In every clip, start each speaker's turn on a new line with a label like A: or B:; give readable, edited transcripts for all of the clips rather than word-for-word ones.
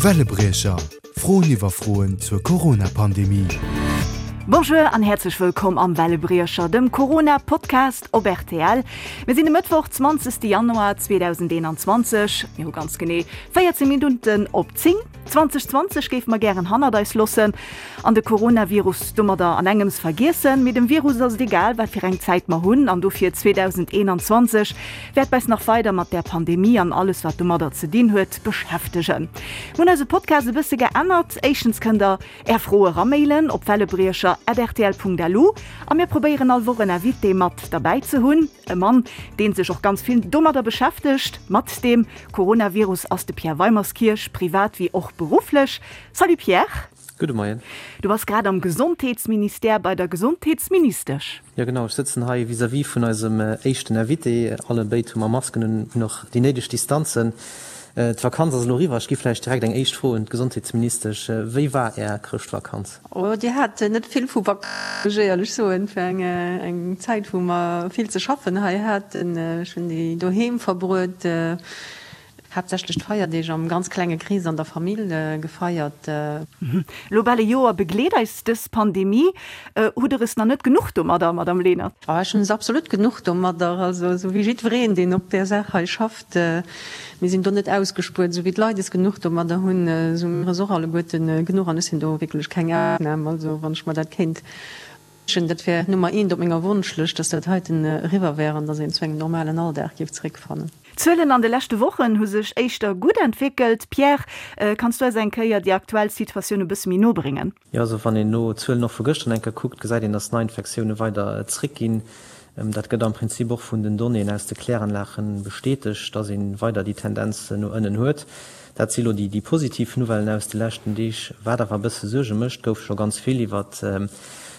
A: Wellebriecher, Froen iwwer Froen zur Corona-Pandemie.
B: Bonjour an häerzlech wëllkomm am Wellebriecher, dem Corona-Podcast op rtl. Mir sinn e Mëttwoch, 20. Januar 2021. Mir hu ganz genee 14 Minutten op 10. 2020 géife mer gären hannert eis loossen an de Coronavirus domadder an engems vergiessen. Mee dem Virus ass et egal, wat fir eng Zäit mer hunn an dofir 2021 wäert eis nach weider mat där Pandemie an alles wat domadder ze dinn huet beschäftegen. Mir hunn eise Podcast e bësse geännert. Éischtens kënnt der är Froe ramailen op wellebriecher@rtl.lu a mir probéieren all Woch en Invité mat derbäi ze hunn. E Mann, dee sech och ganz vill domadder beschäftegt, mat deem Coronavirus, ass de Pierre Weimerskirch, privat wéi och berufflech. Salut Pierre!
C: Gudde Moien.
B: Du bass grad am Gesondheetsministère bei der Gesondheetsministesch.
C: Jo genau, ech sëtzen hei vis-à-vis vun eisem éischten Invité. Alle béid hu mer Masken un, hunn och déi néideg Distanzen. D'Vakanz ass elo eriwwer. Ech gi vläicht direkt eng éischt Fro un d'Gesondheetsministesch. Wéi war Är Chrëschtvakanz?
D: Oh, Dir hat net vill vu Vakanz, muss ech éierlech soen. Et war eng Zäit, wou mer vill ze schaffen hei haten. Ech hunn déi doheem verbruet, haaptsächlech d'Feierdeeg am ganz klenge Krees an der Famill gefeiert.
B: Elo bal e Joer begleet eis dës Pandemie. Hutt Der es nach net genuch domadder, Madamm Lenert?
D: Oh, ech hunn es absolut genuch domadder. Also esou wéi jiddwereen, deen op där Saach hei schafft. Mir sinn do net ausgespuert. Esou wéi d'Leit es genuch domadder hunn, esou hu mir es och alleguerte genuch. An ech sinn do wierklech keng Ausnam. Also wann ech mer dat kéint wënschen, dat wär Nummer eent op menger Wonschlëscht, dass dat heiten eriwwer wär an dass een zu engem normalen Alldag géif zeréckfannen.
B: D'Zuelen an de leschte Wochen hu sech éischter gutt entwéckelt. Pierre, kanns du eis eng Kéier déi aktuell Situatioun e bësse méi no bréngen?
C: Jo, also wann een elo d'Zuelen och vu gëschter eng Kéier kuckt, gesäit een, dass d'Neiinfektioune weider zréckginn. Dat gëtt am Prinzip och vun den Donnéeën aus de Kläranlage bestätegt, dass ee weider déi Tendenz no ënnen huet. Dat si lo déi positiv Nouvellen aus de leschten Deeg. Wat awer e bësse Suerge mécht, gouf scho ganz vill iwwer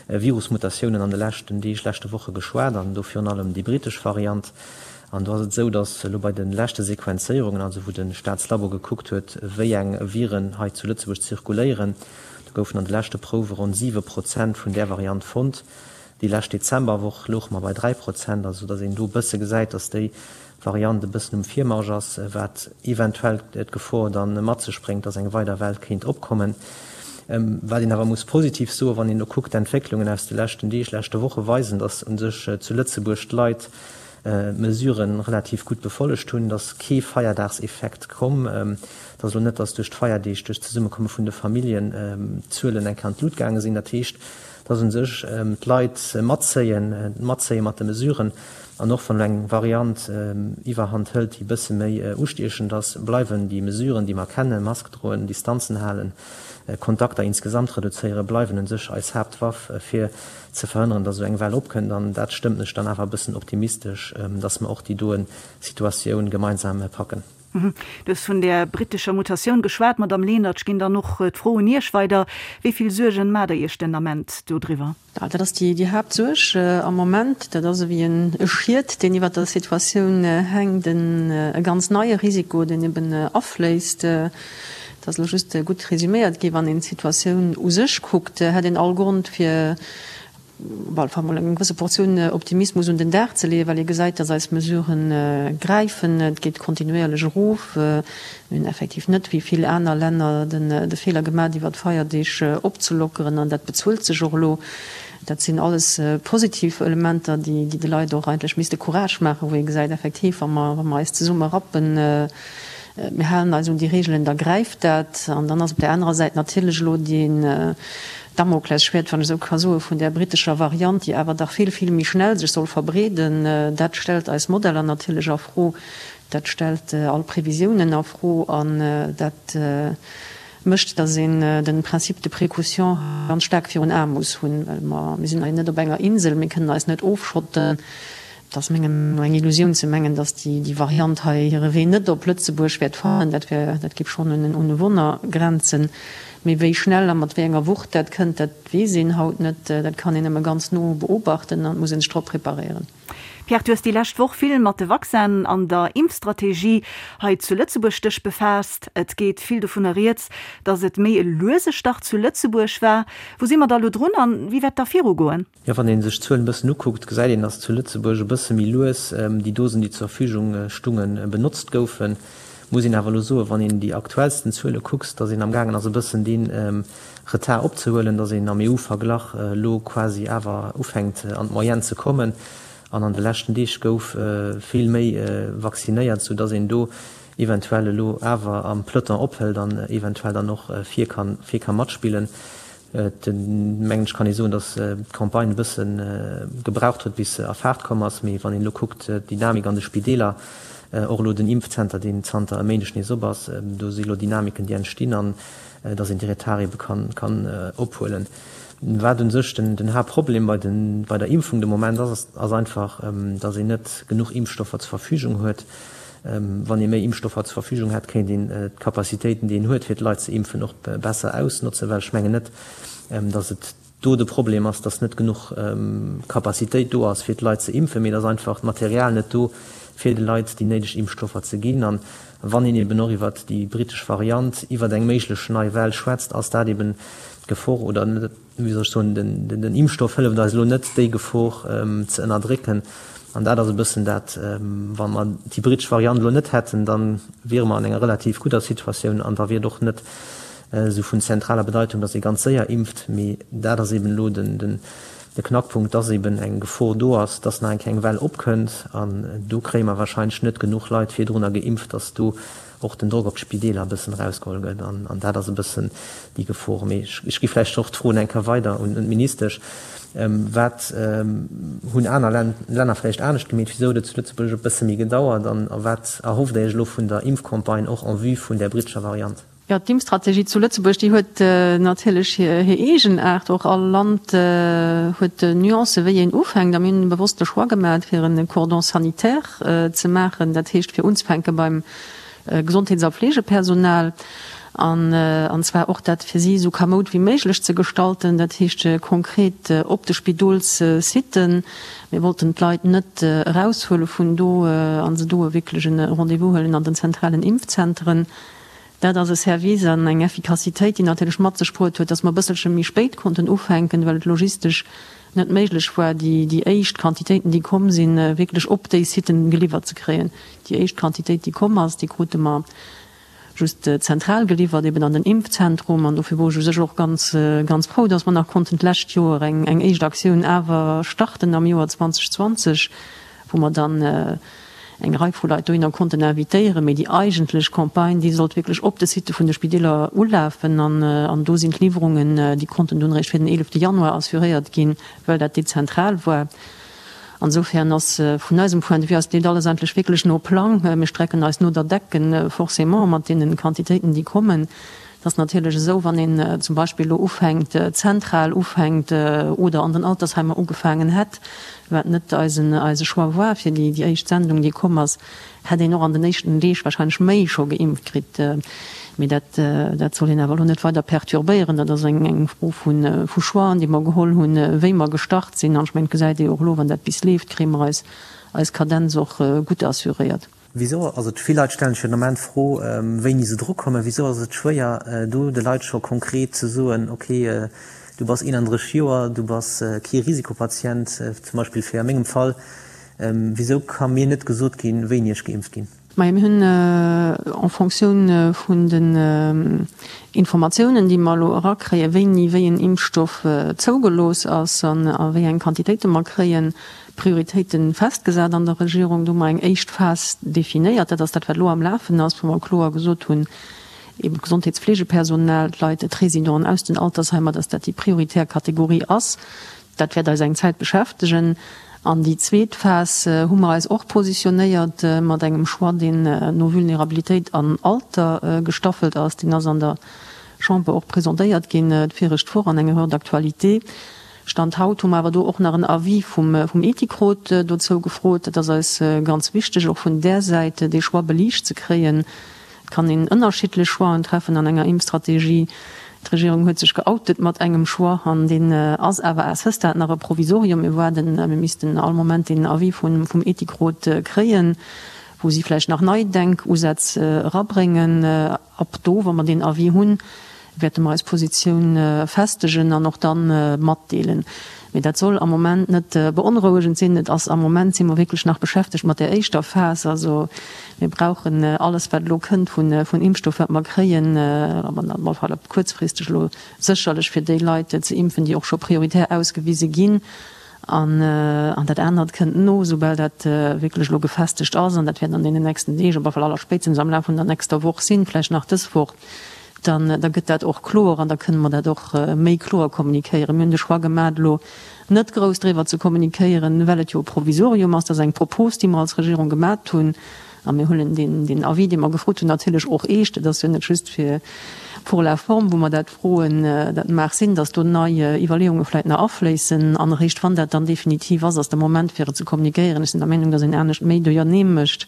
C: Virusmutatiounen an de leschten Deeg, leschte Woche geschwat an do virun allem déi britesch Variant. An do ass et esou, datt elo bei de leschte Sequenzéierungen, also wou de Staatslabo gekuckt huet, wéi eng Viren hei zu Lëtzebuerg zirkuléieren, do goufen an de leschte Prouwe ronn 7 Prozent vun där Variant fonnt. Déi lescht Dezemberwoch louche mer bei 3 Prozent, also datt een do e bësse gesäit, datt déi Variant e bëssen um Virmarsch ass, wat eventuell d'Gefor da mat sech bréngt, datt eng weider Well kéint opkommen. Wat een awer muss positiv soen, wann een elo kuckt, d'Entwécklungen aus de leschten Deeg, leschte Woche weisen, datt u sech zu Lëtzebuerg d'Leit d'Mesuren relativ gutt befollegt hunn, et ass kee Feierdagseffekt komm. Et ass elo net, datt duerch d'Feierdeeg, duerch d'Zesummekomme vun de Familljen d'Zuelen eng Kéier an d'Lut gaange sinn. Dat heescht, datt u sech d'Leit matzéien, matzéie mat de Mesuren. An och wann elo eng Variant Iwwerhand hëlt, déi e bësse méi ustiechend ass, bleiwen déi Mesuren, déi mer kennen, Mask droen, Distanzen halen, Kontakter insgesamt reduzéieren, bleiwen u sech eis Haaptwaff, fir ze verhënneren, dass esou eng Well opkënnt. An dat stëmmt mech dann awer e bëssen optimistesch, dass mer och déi doen Situatioun gemeinsam packen.
B: Du hues vun där brittescher Mutatioun geschwat, Madamm Lenert. Ech ginn dann och d'Fro un Iech weider. Wéi vill Suergen maacht Der Iech den Ament dodriwwer?
D: Dat ass déi Haaptsuerg am Moment. Dat ass ewéi e Schiet, deen iwwert der Situatioun hänkt, e ganz neie Risiko, deen eben afléisst. Et ass elo just gutt resüméiert gi. Wann een d'Situatioun u sech kuckt, hätt een all Grond fir op alle Fall mol eng gewësse Portioun Optimismus un den Dag ze leeën, well ee gesäit, datt eis Mesurë gräifen. Et geet kontinuéierlech erof. Mir hunn effektiv net, wéi vill aner Länner, de Feeler gemaach, iwwer d'Feierdeeg opzelockeren an dat bezuelt sech och elo. Dat sinn alles positiv Elementer, déi de Leit och eigentlech misste Courage maachen, wou ee gesäit, effektiv, wa mer eis zesumme rappen, Mir halen eis un déi Regeln, da gräift dat. An dann ass op där anerer Säit natierlech elo deen Damoklesschwäert, wann ech esou ka soen, vun där brittescher Variant, déi awer dach vill, vill méi schnell sech soll verbreeden. Dat stellt eis Modeller natierlech a Fro, dat stellt all Previsiounen a Fro an dat mécht, datt een de Principe de précaution ganz staark virun Ae muss hunn, well mer, mir sinn hei net op enger Insel, mir kënnen eis net ofschotten. Et ass menger Meenung no eng Illusioun ze mengen, datt déi Variant hei hire Wee net op Lëtzebuerg wäert fannen. Dat wär, dat géif schonn un e Wonner grenzen. Mee wéi schnell a mat wéi enger Wucht dat kënnt, dat weess een haut net. Dat kann een nëmme ganz no beobachten an et muss ee sech drop preparéieren.
B: Pierre, du hues déi lescht Woch vill mat de Vaccinen an der Impfstrategie hei zu Lëtzebuerg dech befaasst. Et geet vill dovunner rieds, datt et méi e luese Start zu Lëtzebuerg war. Wou si mer da lo drun an wéi wäert da virugoen?
C: Jo, wann ee sech d'Zuelen e bëssen ukuckt, gesäit een, dass zu Lëtzebuerg e bësse méi lues déi Dosen, déi zur Verfügung stungen, benotzt goufen. Muss een awer elo soen, wann een déi aktuellsten Zuele kucks, datt een amgaangen ass e bëssen dee Retard opzehuelen, datt een am EU-Verglach elo quasi awer ufänkt an d'Moyenne ze kommen. An an de leschten Deeg gouf vill méi vaccinéiert, soudatt een do eventuell elo awer am Peloton ophëlt an eventuell dann och vir ka matspillen. Et, mengen ech, kann ee soen, datt d'Campagne e bësse gebraucht huet, bis se a Faart komm ass. Mee wann een elo kuckt, d'Dynamik an de Spideeler, och elo den Impfzenter, deen zanter e Méindeg nees op ass, do si elo Dynamiken, déi entstinn an datt een déi Retard ebe kann ophuelen. Wat u sech den Haaptproblem bei der Impfung de Moment ass, ass einfach, datt een net genuch Impfstoffer zur Verfügung huet. Wann ee méi Impfstoffer zur Verfügung hätt, kéint een d'Capacitéiten, déi een huet, fir d'Leit ze impfen, och besser ausnotzen, well ech mengen net, datt et do de Problem ass, datt net genuch Capacitéit do ass, fir d'Leit ze impfen, mee et ass einfach d'Material net do, fir de Leit déi néideg Impfstoffer ze ginn. An wann een eben och iwwert déi brittesch Variant, iwwert eng méiglech nei Well schwätzt, ass dat eben d'Gefor oder net, wéi soll ech soen, den Impfstoff hëlleft eis elo net, déi Gefor ze ënnerdrécken. An dat ass e bëssen dat, wa mer déi brittesch Variant elo net hätten, da wiere mer an enger relativ gudder Situatioun an da wier et och net esou vun zentraler Bedeitung, datt ee ganz séier impft. Mee dat ass eben elo de Knackpunkt, datt eben eng Gefor do ass, datt nach eng Kéier eng Well opkënnt. An do kréie mer wahrscheinlech net genuch Leit virdrunner geimpft, datt do och den Drock op d'Spideeler e bëssen erausgeholl gëtt an dat ass e bëssen déi Gefor. Mee ech gi vläicht och d'Fro eng Kéier weider un d'Ministesch, Wat hunn aner Länner vläicht anescht gemeet? Wisou huet et zu Lëtzebuerg e bësse méi gedauert? An wat erhofft Dir Iech elo vun der Impfcampagne och en vue vun där brittescher Variant?
D: Jo, d'Impfstrategie zu Lëtzebuerg, déi huet natierlech hir Eegenaart. Och all Land huet Nuancen, wéi een ufänkt. A mir hunn bewosst de Choix gemaach, fir e Cordon sanitaire ze maachen, dat heescht fir unzefänke beim Gesondheets a Fleegepersonal, an zwar och dat fir si esou kamoud wéi méiglech ze gestalten, dat heescht konkret op de Spidolssitten. Mir wollten d'Leit net eraushuele vun do a se do wierklech e Rendez-vous huelen an den zentralen Impfzenteren. Dat ass e Service an eng Effikassitéit, déi natierlech mat sech bruet huet, dass mer e bësselche méi spéit konnten ufänken, well et logistesch net méiglech war, déi éischt Quantitéiten, déi komm sinn, wierklech op déi Siten geliwwert ze kréien. Déi éischt Quantitéit, déi komm ass, déi krute mer just zentral geliwwert, eben an den Impfzentrum. An dofir wor ech u sech och ganz, ganz frou, dass mer nach konnten d'lescht Joer eng éischt Aktioun awer starten am Joer 2020, wou mer dann eng Rei vu Leit dohinner konnten invitéieren. Mee déi eigentlech Campagne, déi sollt wierklech op de Sitte vun de Spideeler ulafen. An do sinn d'Liwwerungen, déi konnten dunn eréischt fir den 11 Januar assuréiert ginn, well dat dezentral war. Insofern ass vun eisem Point de vue ass dat alles eigentlech wierklech no Plang. Mir strecken eis no der Decken, forcément, mat deene Quantitéiten, déi kommen. Et ass natierlech esou, wann een zum Beispill elo ufänkt, zentral ufänkt oder an den Altersheimer ugefaangen hätt, wat net eisen eise Choix war fir déi éischt Sendung, déi komm ass, hätt een och an den éischten Deeg wahrscheinlech méi scho geimpft kritt. Mee dat dat soll een awer elo net weider perturbéieren. Dat ass eng eng Fro vu vu Choixen, déi mer geholl hunn, wéi mer gestart sinn. An ech mengen, et gesäit ee jo och elo, wann dat bis leeft, kréie mer eis eis Kadenz och gutt assuréiert.
C: Wisou ass et, vill Leit stellen sech jo den Ament d'Fro, wéini se drukommen, wisou ass et schwéier do de Leit scho konkret ze soen, ok, du bass 31 Joer, du bass kee Risikopatient, zum Beispill fir a mengem Fall, wisou ka mir net gesot ginn, wéini ech geimpft ginn?
D: Majo, mir hunn en Fonctioun vun den Informatiounen, déi mer elo erakréien, wéini wéi en Impfstoff zougelooss ass an a wéi eng Quantitéite mer kréien, Prioritéite festgesat an der Regierung. Do hu mer eng éischt Phas definéiert, dat ass dat, wat elo am Lafen ass, wou mer kloer gesot hunn, eben d'Gesondheetsfleegepersonal, d'Leit, d'Résidenten aus den Altersheimer, dass dat déi prioritär Kategorie ass. Dat wäert eis eng Zäit beschäftegen. An déi zweet Phas hu mer eis och positionéiert mat engem Choix, deen no Vulnerabilitéit an Alter gestaffelt ass. Deen ass an der Chamber och presentéiert ginn d'viregt Woch an enger Heure d'actualité. Stand haut hu mer awer do och nach en Avis vum Ethikrot dozou gefrot. Dat ass eis ganz wichteg, och vun där Säit dee Choix beliicht ze kréien. Et kann een ënnerschiddlech Choixen treffen an enger Impfstrategie. D'Regierung huet sech geoutet mat engem Choix an deen ass awer à ce stade nach e Provisorium. Mir waarden, mir missten all Moment deen Avis vum Ethikrot kréien, wou si vläicht nach nei Denkusätz erabréngen. Ab do, wa mer deen Avis hunn, wäerte mer eis Positioun festegen an och da matdeelen. Mee dat soll am Moment net beonrouegend sinn. Et ass am Moment si mer wierklech nach beschäftegt mat där éischter Phas. Also mir brauchen alles, wat elo kënnt vun Impfstoff, wat mer kréien, op alle Fall kuerzfristeg elo sécherlech fir déi Leit ze impfen, déi och scho prioritär ausgewise ginn. An dat anert kënnt no, soubal dat wierklech elo gefestegt ass, an dat wäert an deenen nächsten Deeg, op alle Fall allerspéitstens am Laf vun der nächster Woch sinn, vläicht nach dës Woch, dann da gëtt dat och kloer an da kënne mer dat och méi kloer kommunikéieren. Mir hunn de Choix gemaach, elo net grouss driwwer ze kommunikéieren, well et jo e Provisorium ass. Dat ass eng Propos, déi mer als Regierung gemaat hunn. A mir huelen deen Avis, dee mer gefrot hunn, natierlech och eescht. Et ass jo net just fir pour la forme, wou mer dat froen. Dat mag sinn, datt do nei Iwwerleeunge vläicht nach afléissen. An eréischt wann dat dann definitiv ass, ass de Moment, fir et ze kommunikéieren. Ech sinn der Meenung, datt een anescht méi duerjernee mécht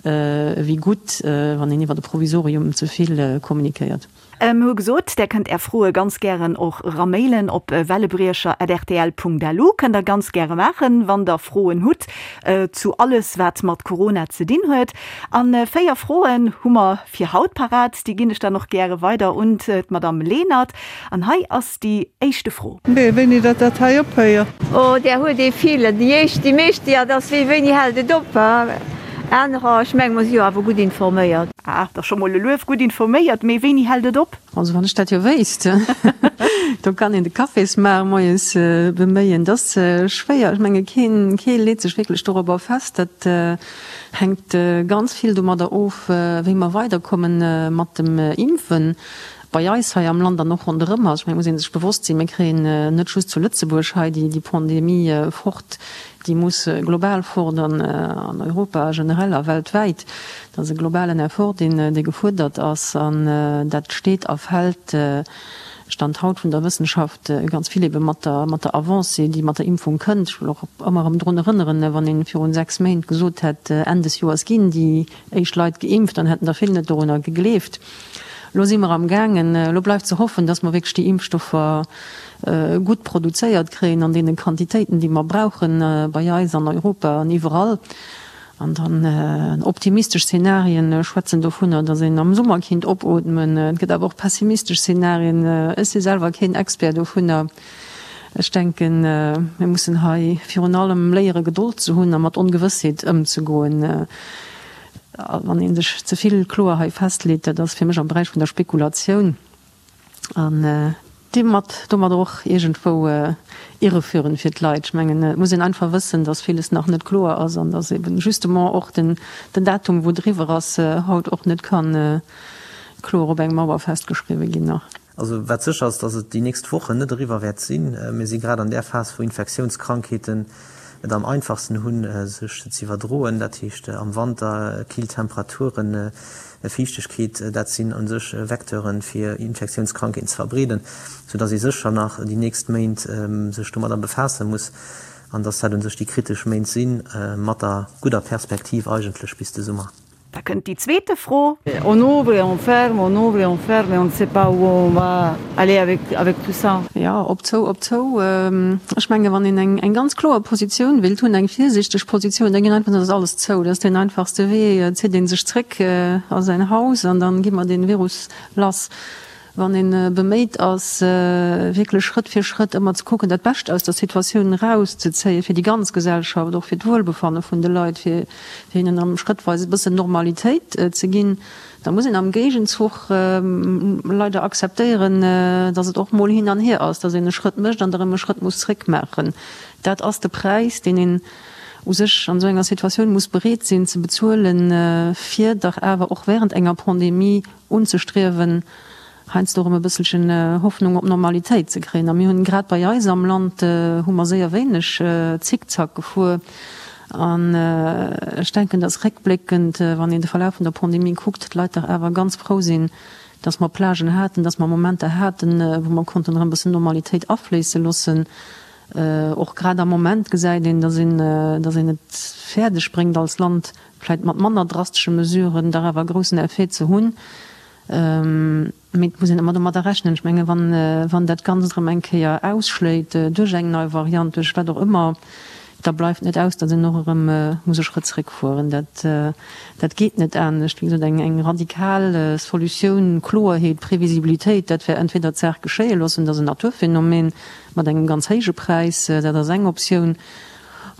D: ewéi gutt, wann een iwwer e Provisorium ze vill kommunikéiert.
B: Mir hu gesot, där kënnt Är Froe ganz gären och eramailen op wellebriecher@rtl.lu. Kënnt der ganz gäre maachen, wann der Froen hutt zu alles, wat mat Corona ze dinn huet. A 4 Froen hu mer fir haut parat. Déi ginn ech dann och gäre weider un d'Madame Lenert. An hei ass déi éischte Fro.
E: Mee wéini datt dat hei ophéiert?
F: Oh, där huet ee vill. Déi éischt, déi meescht, jo, dat ass wéi, wéini hält et op? Anerer, ech menge mer si jo awer gutt informéiert.
B: Ah, dat ass scho mol e Luef, gutt informéiert. Mee wéini hält et op?
D: Also wann ech dat jo wéisst, do kann een de Cafésmaach moies beméien. Dat ass schwéier. Ech menge keen, kee leet sech wierklech dorobber fest. Dat hänkt ganz vill domadder of, wéi mer weiderkomme mat dem Impfen. Bei eis hei am Land an och ronderëm eis, ech mengen, et muss ee sech bewosst sinn, mir kréien net just zu Lëtzebuerg hei déi Pandemie fort, déi muss global fort an an Europa generell a weltwäit. Dat ass e globalen Effort, deen dee gefuerdert ass an dat steet a fält, Stand haut vun der Wëssenschaft, ganz vill ebe mat der mat der Avancée, déi mat der Impfung kënnt. Ech wëll och ëmmer erëm drun erënneren, wann ee virun 6 Méint gesot hätt, Enn des Joers ginn déi éischt Leit geimpft, dann hätten der vill net dorunner gegleeft. Elo si mer am gaangen, elo bleift ze hoffen, dass mer wierklech déi Impfstoffer gutt produzéiert kréien an deene Quantitéiten, déi mer brauchen, bei eis an Europa an iwwerall. An dann optimistesch Szenarien schwätzen dovunner, dass een am Summer kinnt opootmen. Et gëtt awer och pessimistesch Szenarien. Ech si selwer keen Expert dovunner. Ech denken, mir mussen hei virun allem léiere Gedold ze hunn a mat Ongewëssheet ëmzegoen. Wann ee sech ze vill kloer hei festleet, dat ass fir mech am Beräich vun der Spekulatioun an deemat domadder och iergendwou irreführend fir d'Leit. Ech mengen, et muss een einfach wëssen, datt villes nach net kloer ass an datt eben justement och den Datum, wou et eriwwer ass, haut och net ka kloer op eng Mauer festgeschriwwe ginn nach.
C: Also wat sécher ass, datt et déi nächst Wochen net eriwwer wäert sinn. Mir si grad an där Phas, wou Infektiounskrankheeten et am einfachsten hunn, sech ze iwwerdroen. Dat heescht am Wanter, kill Temperaturen, Fiichtegkeet, dat sinn u sech Vecteuren, fir Infektiounskrankheeten ze verbreeden, soudatt ee sécher nach déi nächst Méint sech domadder befaasse muss an datt dat u sech déi kritesch Méint sinn, mat der gudder Perspektiv eigentlech bis de Summer.
B: Da kënnt déi zweete Fro.
E: On ouvre et on ferme, on ouvre et on ferme et on ne sait pas où on va aller avec, avec tout ça.
D: Jo, op zou, op zou. Ech menge wann een eng, eng ganz kloer Positioun wéilt hunn, eng virsiichteg Positioun, da ginn einfach, dann ass alles zou. Dat ass deen einfachste Wee. Et zitt ee sech zréck a säin Haus an dann gi mer dee Virus lass. Wann ee beméit ass, wierklech Schrëtt fir Schrëtt ëmmer ze kucken, dat Bescht aus der Situatioun erauszezéien, fir déi ganz Gesellschaft, och fir d'Wuelbefanne vun de Leit, fir hinnen erëm schrëttweis e bëssen Normalitéit ze ginn, da muss een am Géigenzuch leider akzeptéieren, datt et och mol hin an hier ass, datt een e Schrëtt mécht an da erëm e Schrëtt muss zréckmaachen. Dat ass de Präis, deen een u sech an esou enger Situatioun muss bereet sinn ze bezuelen, fir dach awer och während enger Pandemie unzestriewen, heiansdo erëm e bësselchen Hoffnung op Normalitéit ze kréien. A mir hunn grad bei eis am Land hu mer séier wéineg Zickzack gefuer. An ech denken, dass réckbléckend, wann een de Verlaf vun der Pandemie kuckt, d'Leit dach awer ganz frou sinn, dass mer Plagen haten, dass mer Momenter haten, wou mer konnten erëm e bëssen Normalitéit afléisse loossen. Och grad am Moment gesäit een, dass een, dass een et fäerdeg bréngt als Land, vläit mat manner drastesche Mesuren, dach awer e groussen Effet ze hunn. Mee et muss een ëmmer domadder rechnen. Ech menge wann, wann dat Ganzt erëm eng Kéier ausschléit duerch eng nei Variant, duerch wat och ëmmer, Da bleift net aus, datt een och erëm muss e Schrëtt zréckfueren. Dat, dat geet net anescht. Wéi gesot, eng, eng radikal Solutioun, Kloerheet, Previsibilitéit, dat wär entweder d'Saach geschéie loossen, dat ass en Naturphänomen mat engem ganz héije Präis, dat ass eng Optioun,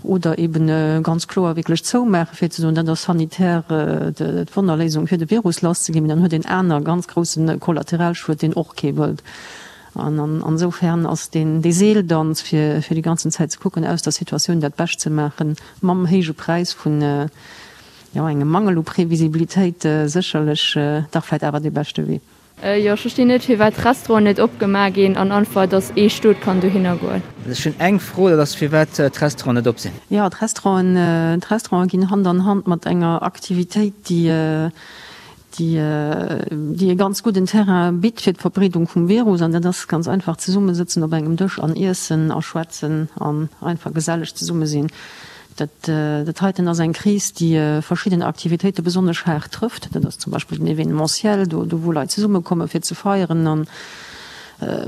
D: oder eben ganz kloer wierklech zoumaachen, fir ze soen, dat ass sanitär d'Wonnerléisung, fir de Virus lasszeginn. Mee dann huet een aner ganz grousse Kollateralschued, deen och kee wëllt. An ansoufern ass deen dee Seeldanz, fir fir déi ganzen Zäit ze kucken, aus der Situatioun dat Bescht ze maachen, mam héije Präis vun, jo, engem Mangel u Previsibilitéit, sécherlech dach vläicht awer dee beschte Wee.
G: Jo, ech verstinn net firwat d'Restauranten net opgemaach ginn an einfach dass ee Stot kann dohinner goen.
H: Ech hunn eng Fro, dat ass firwat d'Restauranten net op sinn.
D: Jo, d'Restauranten, d'Restauranten ginn Hand an Hand mat enger Aktivitéit, déi, déi, déi e ganz gudden Terrain bitt fir d'Verbreedung vum Virus. An dat ass ganz einfach zesummesëtzen op engem Dësch an iessen a schwätzen an einfach geselleg zesumme sinn. Dat, dat heiten ass eng Kris, déi verschidden Aktivitéite besonnesch haart trëfft. Dat ass zum Beispill den Événementiel, do, do wou Leit zesummekomme fir ze feieren. An,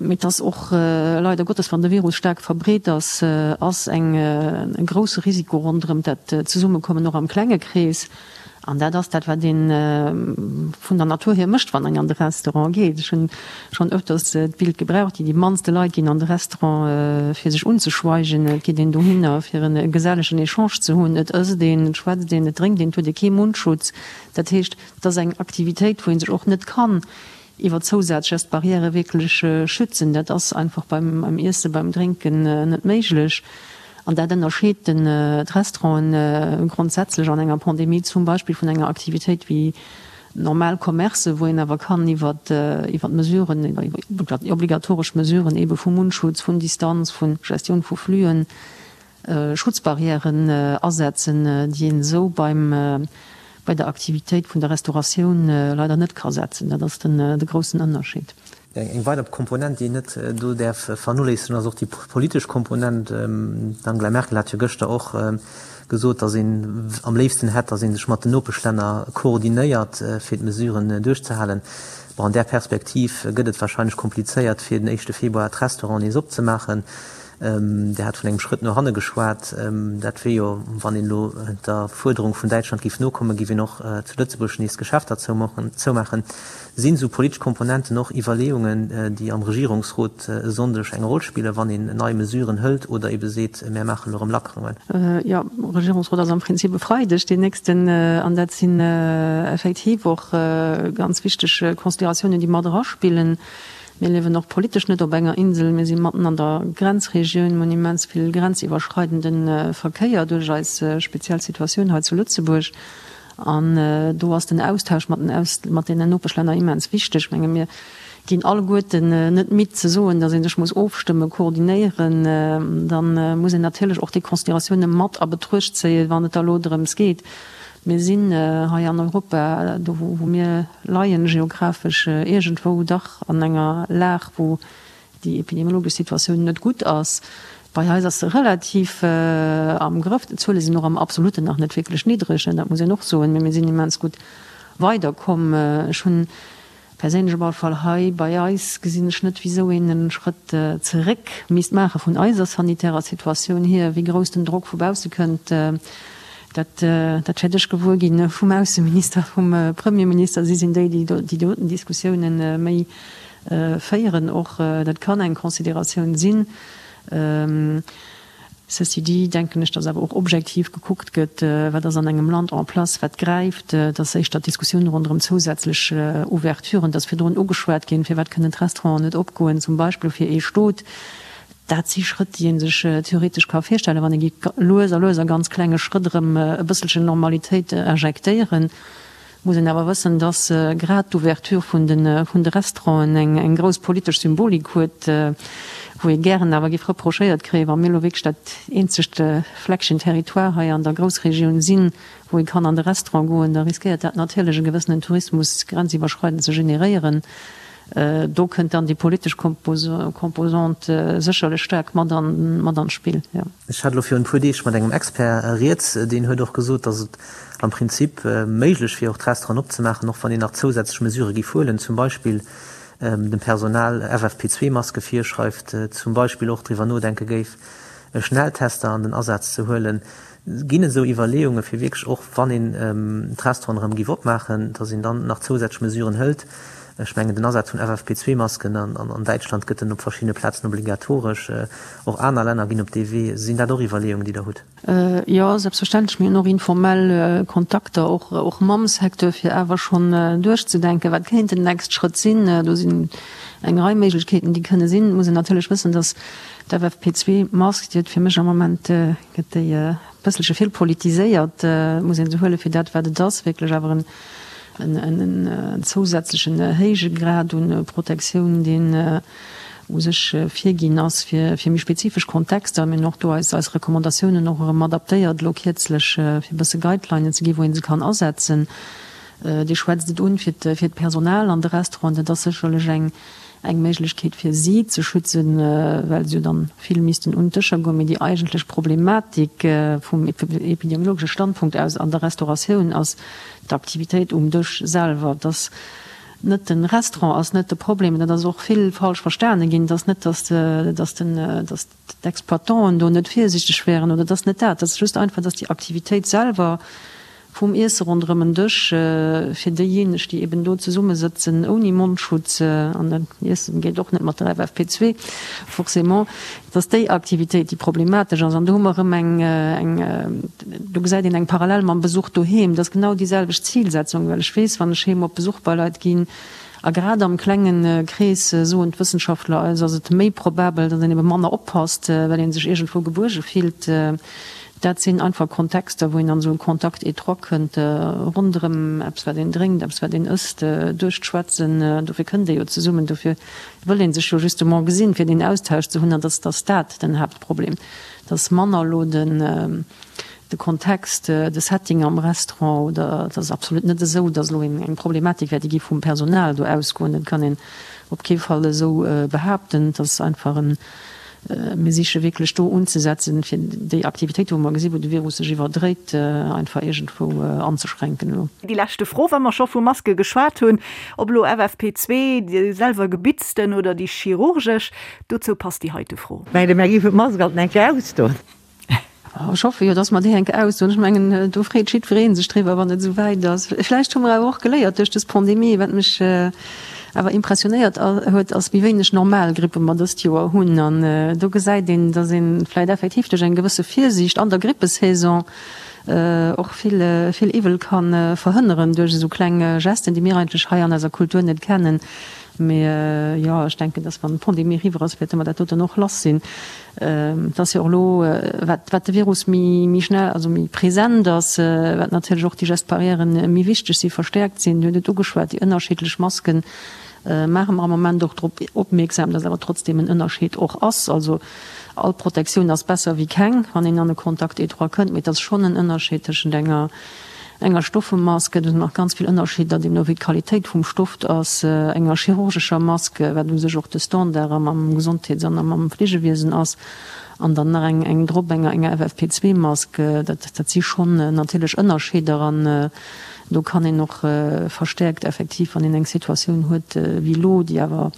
D: mee et ass och leider Gottes, wann de Virus staark verbreet ass, ass eng, e grousse Risiko ronderëm dat Zesummekommen och am klenge Krees. An dat ass dat, wat ee vun der Natur hier mécht, wann een an de Restaurant geet. Ech hunn schonn öfters d'Bild gebraucht, déi mannste Leit ginn an de Restaurant, fir sech unzeschweigen. Et geet een dohinner, fir e gesellegen Echange ze hunn. Et ësst een, et schwätzt een, et drénkt een, et huet ee kee Mundschutz. Dat heescht, et ass eng Aktivitéit, wou ee sech och net kann iwwer Zousaz-Gestes barrières wierklech schützen. Dat ass einfach beim Iessen, beim Drénken net méiglech. An dat ënnerscheet d'Restauranten grondsätzlech an enger Pandemie zum Beispill vun enger Aktivitéit wéi normal Commercen, wou een awer kann iwwer d'Mesuren, iwwer déi obligatoresch Mesuren eebe vu Mundschutz, vun Distanz, vu Gestioun vu Fluen, Schutzbarrièren asetzen, déi een esou beim, bei der Aktivitéit vun der Restauratioun leider net ka setzen. Dat ass den, de groussen Ënnerscheed.
C: Eng weider Komponent, déi een net do däerf vernoléissegen, ass och déi politesch Komponent. D'Angela Merkel hat jo gëschter och gesot, datt een am léifsten hätt, datt ee sech mat den Nopeschlänner koordinéiert, fir d'Mesuren duerchzehalen. Bon, an där Perspektiv gëtt et warscheinlech komplizéiert, fir den éischte Februar d'Restauranten nees opzemaachen. Dir hat vun engem Schrëtt no hanne geschwat. Dat wier jo, wann een elo der Fuerderung vun Däitschland géif nokommen, géif een och zu Lëtzebuerg nees d'Geschäfter zoumaachen. Sinn esou politesch Komponenten och Iwwerleeungen, déi am Regierungsrot e Sonndeg eng Roll spillen, wann een nei Mesuren hëlt oder ebe seet, mär maachen elo erëm Lackerungen?
D: Jo, Regierungsrot ass am Prinzip e Freideg deen nächsten. An dat sinn effektiv och ganz wichteg Consideratiounen, déi mat eraspillen. Mir liewen och politesch net op enger Insel, mir si matten an der Grenzregioun, mir hunn immens vill grenziwwerschreidende Verkéier duerch eis speziell Situatioun hei zu Lëtzebuerg. An do ass den Austausch mat den Aus mat deenen Nopeschlänner immens wichteg. Ech menge mir ginn alleguerten net midd ze soen, datt ee sech muss ofstëmmen, koordinéieren. Da muss een natierlech och déi Consideratioune mat a Betruecht zéien, wann et da elo drëms geet, Mir sinn hei an Europa, do wou mir leien, geographesch iergendwou dach an enger Lag, wou déi epidemiologesch Situatioun net gutt ass. Bei eis ass se relativ am Grëff. D'Zuele sinn och am Absoluten nach net wierklech niddreg, dat muss een och soen, mee mir sinn immens gutt weiderkomm. Ech hunn Perséinlech op alle Fall hei bei eis gesinn ech net, wisou een e Schrëtt zeréck misst maache vun eiser sanitärer Situatioun hier. Wéi grouss den Drock vu bausse kënnt, dat dat wäert ech gewuer gi vum Ausseminister, vum Premierminister. Si sinn déi, déi déi doten Diskussiounen méi féieren och. Dat kann eng Consideratioun sinn. Ceci dit denken ech, dass awer och objektiv gekuckt gëtt, wat ass an engem Land en place, wat gräift. Et ass éischter d'Diskussioun ronderëm zousätzlech Ouverturen, et ass virdrun ugeschwat ginn, firwat kënnen d'Restauranten net opgoen, zum Beispill fir ee Stot. Dat si Schrëtt, déi ee sech theoretesch ka virstellen, wann ee géif lues a lues a ganz klenge Schrëtt erëm e bësselchen Normalitéit injektéieren. Muss een awer wëssen, dass grad d'Ouverture vun de vun de Restauranten eng grouss politesch Symbolik huet, wou ee gären awer géif reprochéiert kréien, wa mir elo wierklech dat eenzegt Fleckchen Territoire hei an der Groussregioun sinn, wou ee kann an de Restaurant goen, da riskéiert dat natierlech e gewëssenen Tourismus grenziwwerschreidend ze generéieren. Do kënnt dann déi politesch Composante sécherlech staark mat an mat an d'Spill, jo.
C: Ech hat elo virun e puer Deeg mat engem Expert rieds, deen huet och gesot, datt et am Prinzip méiglech wier och d'Restauranten opzemaachen, och wann een nach zousätzlech Mesurë géif huelen, zum Beispill dem Personal FFP2-Maske virschreift, zum Beispill och driwwer nodenke géif. Schnelltester an den Asaz ze huelen. Ginn et esou Iwwerleeunge fir wierklech och, wann een d'Restauranten erëm géif opmaachen, datt een dann nach zousätzlech Mesuren hëlt? Ech mengen den Asaz vun FFP2-Masken, an Däitschland gëtt en op verschiddene Plazen obligatoresch, och aner Länner ginn op dee Wee. Sinn dat och Iwwerleeungen, déi Der hutt?
D: Jo, selbstverständlech. Mir hunn och informell Kontakter, och mam Secteur, fir awer schonn duerchzedenken, wat kéint den next Schrëtt sinn. Do sinn eng Rei Méiglechkeeten, déi kënne sinn. Et muss een natierlech wëssen, datt d'FFP2-Mask, déi huet fir mech am Moment, gëtt déi e bësselche vill politiséiert, muss ee se huele fir dat, wat et ass, wierklech awer en en zousätzlechen héije Grad un Protektioun, deen u sech virginn ass fir méi spezifesch Kontexter. Mir hunn och do eis Recommandatiounen och erëm adaptéiert elo kierzlech, fir e bësse Guidelinen ze ginn, wou ee se kann asetzen. Dir schwätzt et un fir d'Personal an de Restauranten. Dat ass sécherlech eng eng Méiglechkeet fir si ze schützen, well se jo dann vill missten un d'Dëscher goen. Mee déi eigentlech Problematik vum epidemiologesche Standpunkt aus an der Restauratioun ass d'Aktivitéit um Dësch selwer. Dass net de Restaurant ass net de Problem, dat ass och vill falsch verstane ginn. Et ass net, dass dass den dass d'Exploitanten do net virsiichteg wären oder et ass net dat. Et ass just einfach, dass déi Aktivitéit selwer vum Iesse ronderëm en Dësch fir déijéineg, déi eben do zesummesëtzen ouni Mondschutz, an dat Iessen geet och net mat der FFP2 forcément, dass déi Aktivitéit déi problematesch ass. An do hu mer erëm eng, eng, do gesäit een eng Parallel mam Besuch doheem. Dat ass genau déi selwecht Zilsetzung, well ech weess, wann ech heem op Besuch bei Leit ginn, a grad am klenge Krees, soen d'Wëssenschaftler eis, ass et méi probabel, datt een ebe manner oppasst, well ee sech iergendwou gebuerge fillt. Dat sinn einfach Kontexter, wou een an esou e Contact étroit kënnt, ronderëm eppes, wat een drénkt, eppes, wat een ësst, duerch d'Schwätzen. Dofir kënnt ee jo zesummen, dofir wëll ee sech jo justement gesinn, fir deen Austausch ze hunn. An dass ass dat den Haaptproblem. Et ass manner elo den de Kontext, de Setting am Restaurant oder et ass absolut net esou, dass elo eng Problematik wär, déi géif vum Personal do ausgoen. Dat kann een op kee Fall esou behaapten. Et ass einfach en Mir siche wierklech do unzesetzen, fir déi Aktivitéiten, wou mer gesinn, wou de Virus sech iwwerdréit, einfach iergendwou anzeschränken elo.
B: Déi leschte Fro, wa mer scho vu Maske geschwat hunn, ob elo FFP2, déi selwer gebitzten oder déi chirurgesch, dozou passt déi heite Fro.
E: Mengt Der, mär géifen d'Mask alt eng Kéier ausdoen?
D: Ech hoffe jo, dass mer déi eng Kéier ausdoen. Ech mengen, do freet jiddweree sech driwwer, wann et esou wäit ass. Vläicht hu mer awer och geléiert duerch dës Pandemie. Wat mech awer impressionéiert huet, ass, wéi wéineg normal Grippe mer dëst Joer hunn. An do gesäit een, dass ee vläicht effektiv duerch eng gewësse Virsiicht an der Grippesaison och vill, vill Iwwel ka verhënneren duerch esou kleng Gesten, déi mir eigentlech hei an eiser Kultur net kennen. Mee jo, ech denken, dass wann d'Pandemie eriwwer ass, wäerte mer dat doten och lass sinn. Et ass jo och elo, wat wat de Virus méi méi schnell, also méi present ass, wat natierlech och déi Gestes barrièren méi wichteg si verstäerkt sinn. Dir hutt et ugeschwat, déi ënnerschiddlech Masken maache mer am Moment och drop opmierksam, dass awer trotzdeem en Ënnerscheed och ass. Also all Protektioun ass besser wéi keng, wann een an e Contact étroit kënnt, mee et ass schonn en Ënnerscheed tëschent enger enger Stoffemask, do sinn nach ganz vill Ënnerscheeder, deemno wéi d'Qualitéit vum Stoff ass, enger chirurgescher Mask, wat u sech och de Standard am am Gesondheets an am Fleegewiesen ass, an dann nach eng eng drop, enger enger FFP2-Mask. Dat dat si schonn natierlech Ënnerscheeder an do kann een och verstäerkt effektiv, wann een eng Situatioun huet wéi elo, déi awer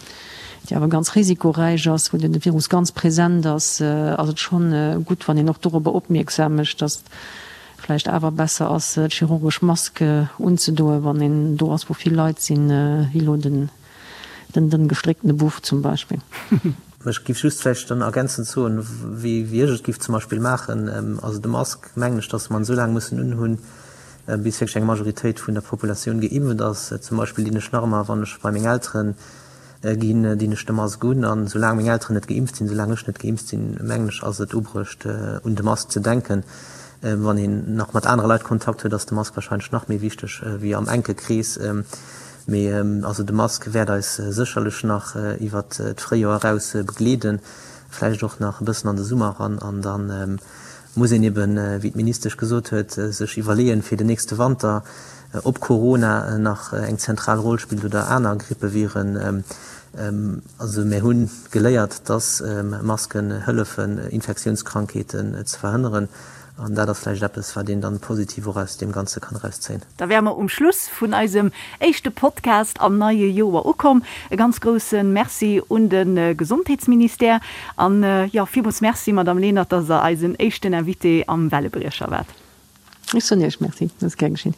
D: déi awer ganz risikoräich ass, wou de Virus ganz present ass, ass et schonn gutt, wann een och dorobber opmierksam mécht, dass vläicht awer besser ass d'chirurgesch Mask unzedoen, wann een do ass wou vill Leit sinn, wéi elo den den dënn gestrécktene Buff zum Beispill.
C: Ech giff just vläicht dann ergänzend soen, wéi wéi ech et giff zum Beispill maachen, also de Mask mengen ech, dass mer en esou laang mussen unhunn, bis wierklech eng Majoritéit vun der Populatioun geimpft ass. Zum Beispill dinn ech nach ëmmer, wann ech bei meng Elteren Ginn, dinn ech de Mask un. An soulaang meng Elteren net geimpft sinn, soulaang ech net geimpft sinn, mengen ech, ass et ubruecht, un de Mask ze denken. Wann een nach mat anere Leit Kontakt huet, ass de Mask warscheinlech nach méi wichteg wéi am enke Krees. Mee also de Mask wäert eis sécherlech nach iwwert d'Fréijoer eraus begleeden, vläicht och nach e bëssen an de Summer eran. An dann muss een eben, wéi d'Ministesch gesot huet, sech iwwerleeën, fir den nächste Wanter, ob Corona nach eng zentral Roll spillt oder aner Grippeviren. Also mir hu geléiert, dass Masken hëllefen, Infektiounskrankheeten ze verhënneren. An dat ass vläicht eppes, wat een dann positiv och aus deem Ganze kann erauszéien.
B: Da wäre mer um Schluss vun eisem éischte Podcast am neie Joer ukomm. E ganz grousse Merci un de Gesondheetsministère an, jo, villmools Merci, Madamm Lenert, dass Der eisen éischten Invité am Wellebriecher waart.
D: Ech soen Iech Merci, dat ass gär geschinn.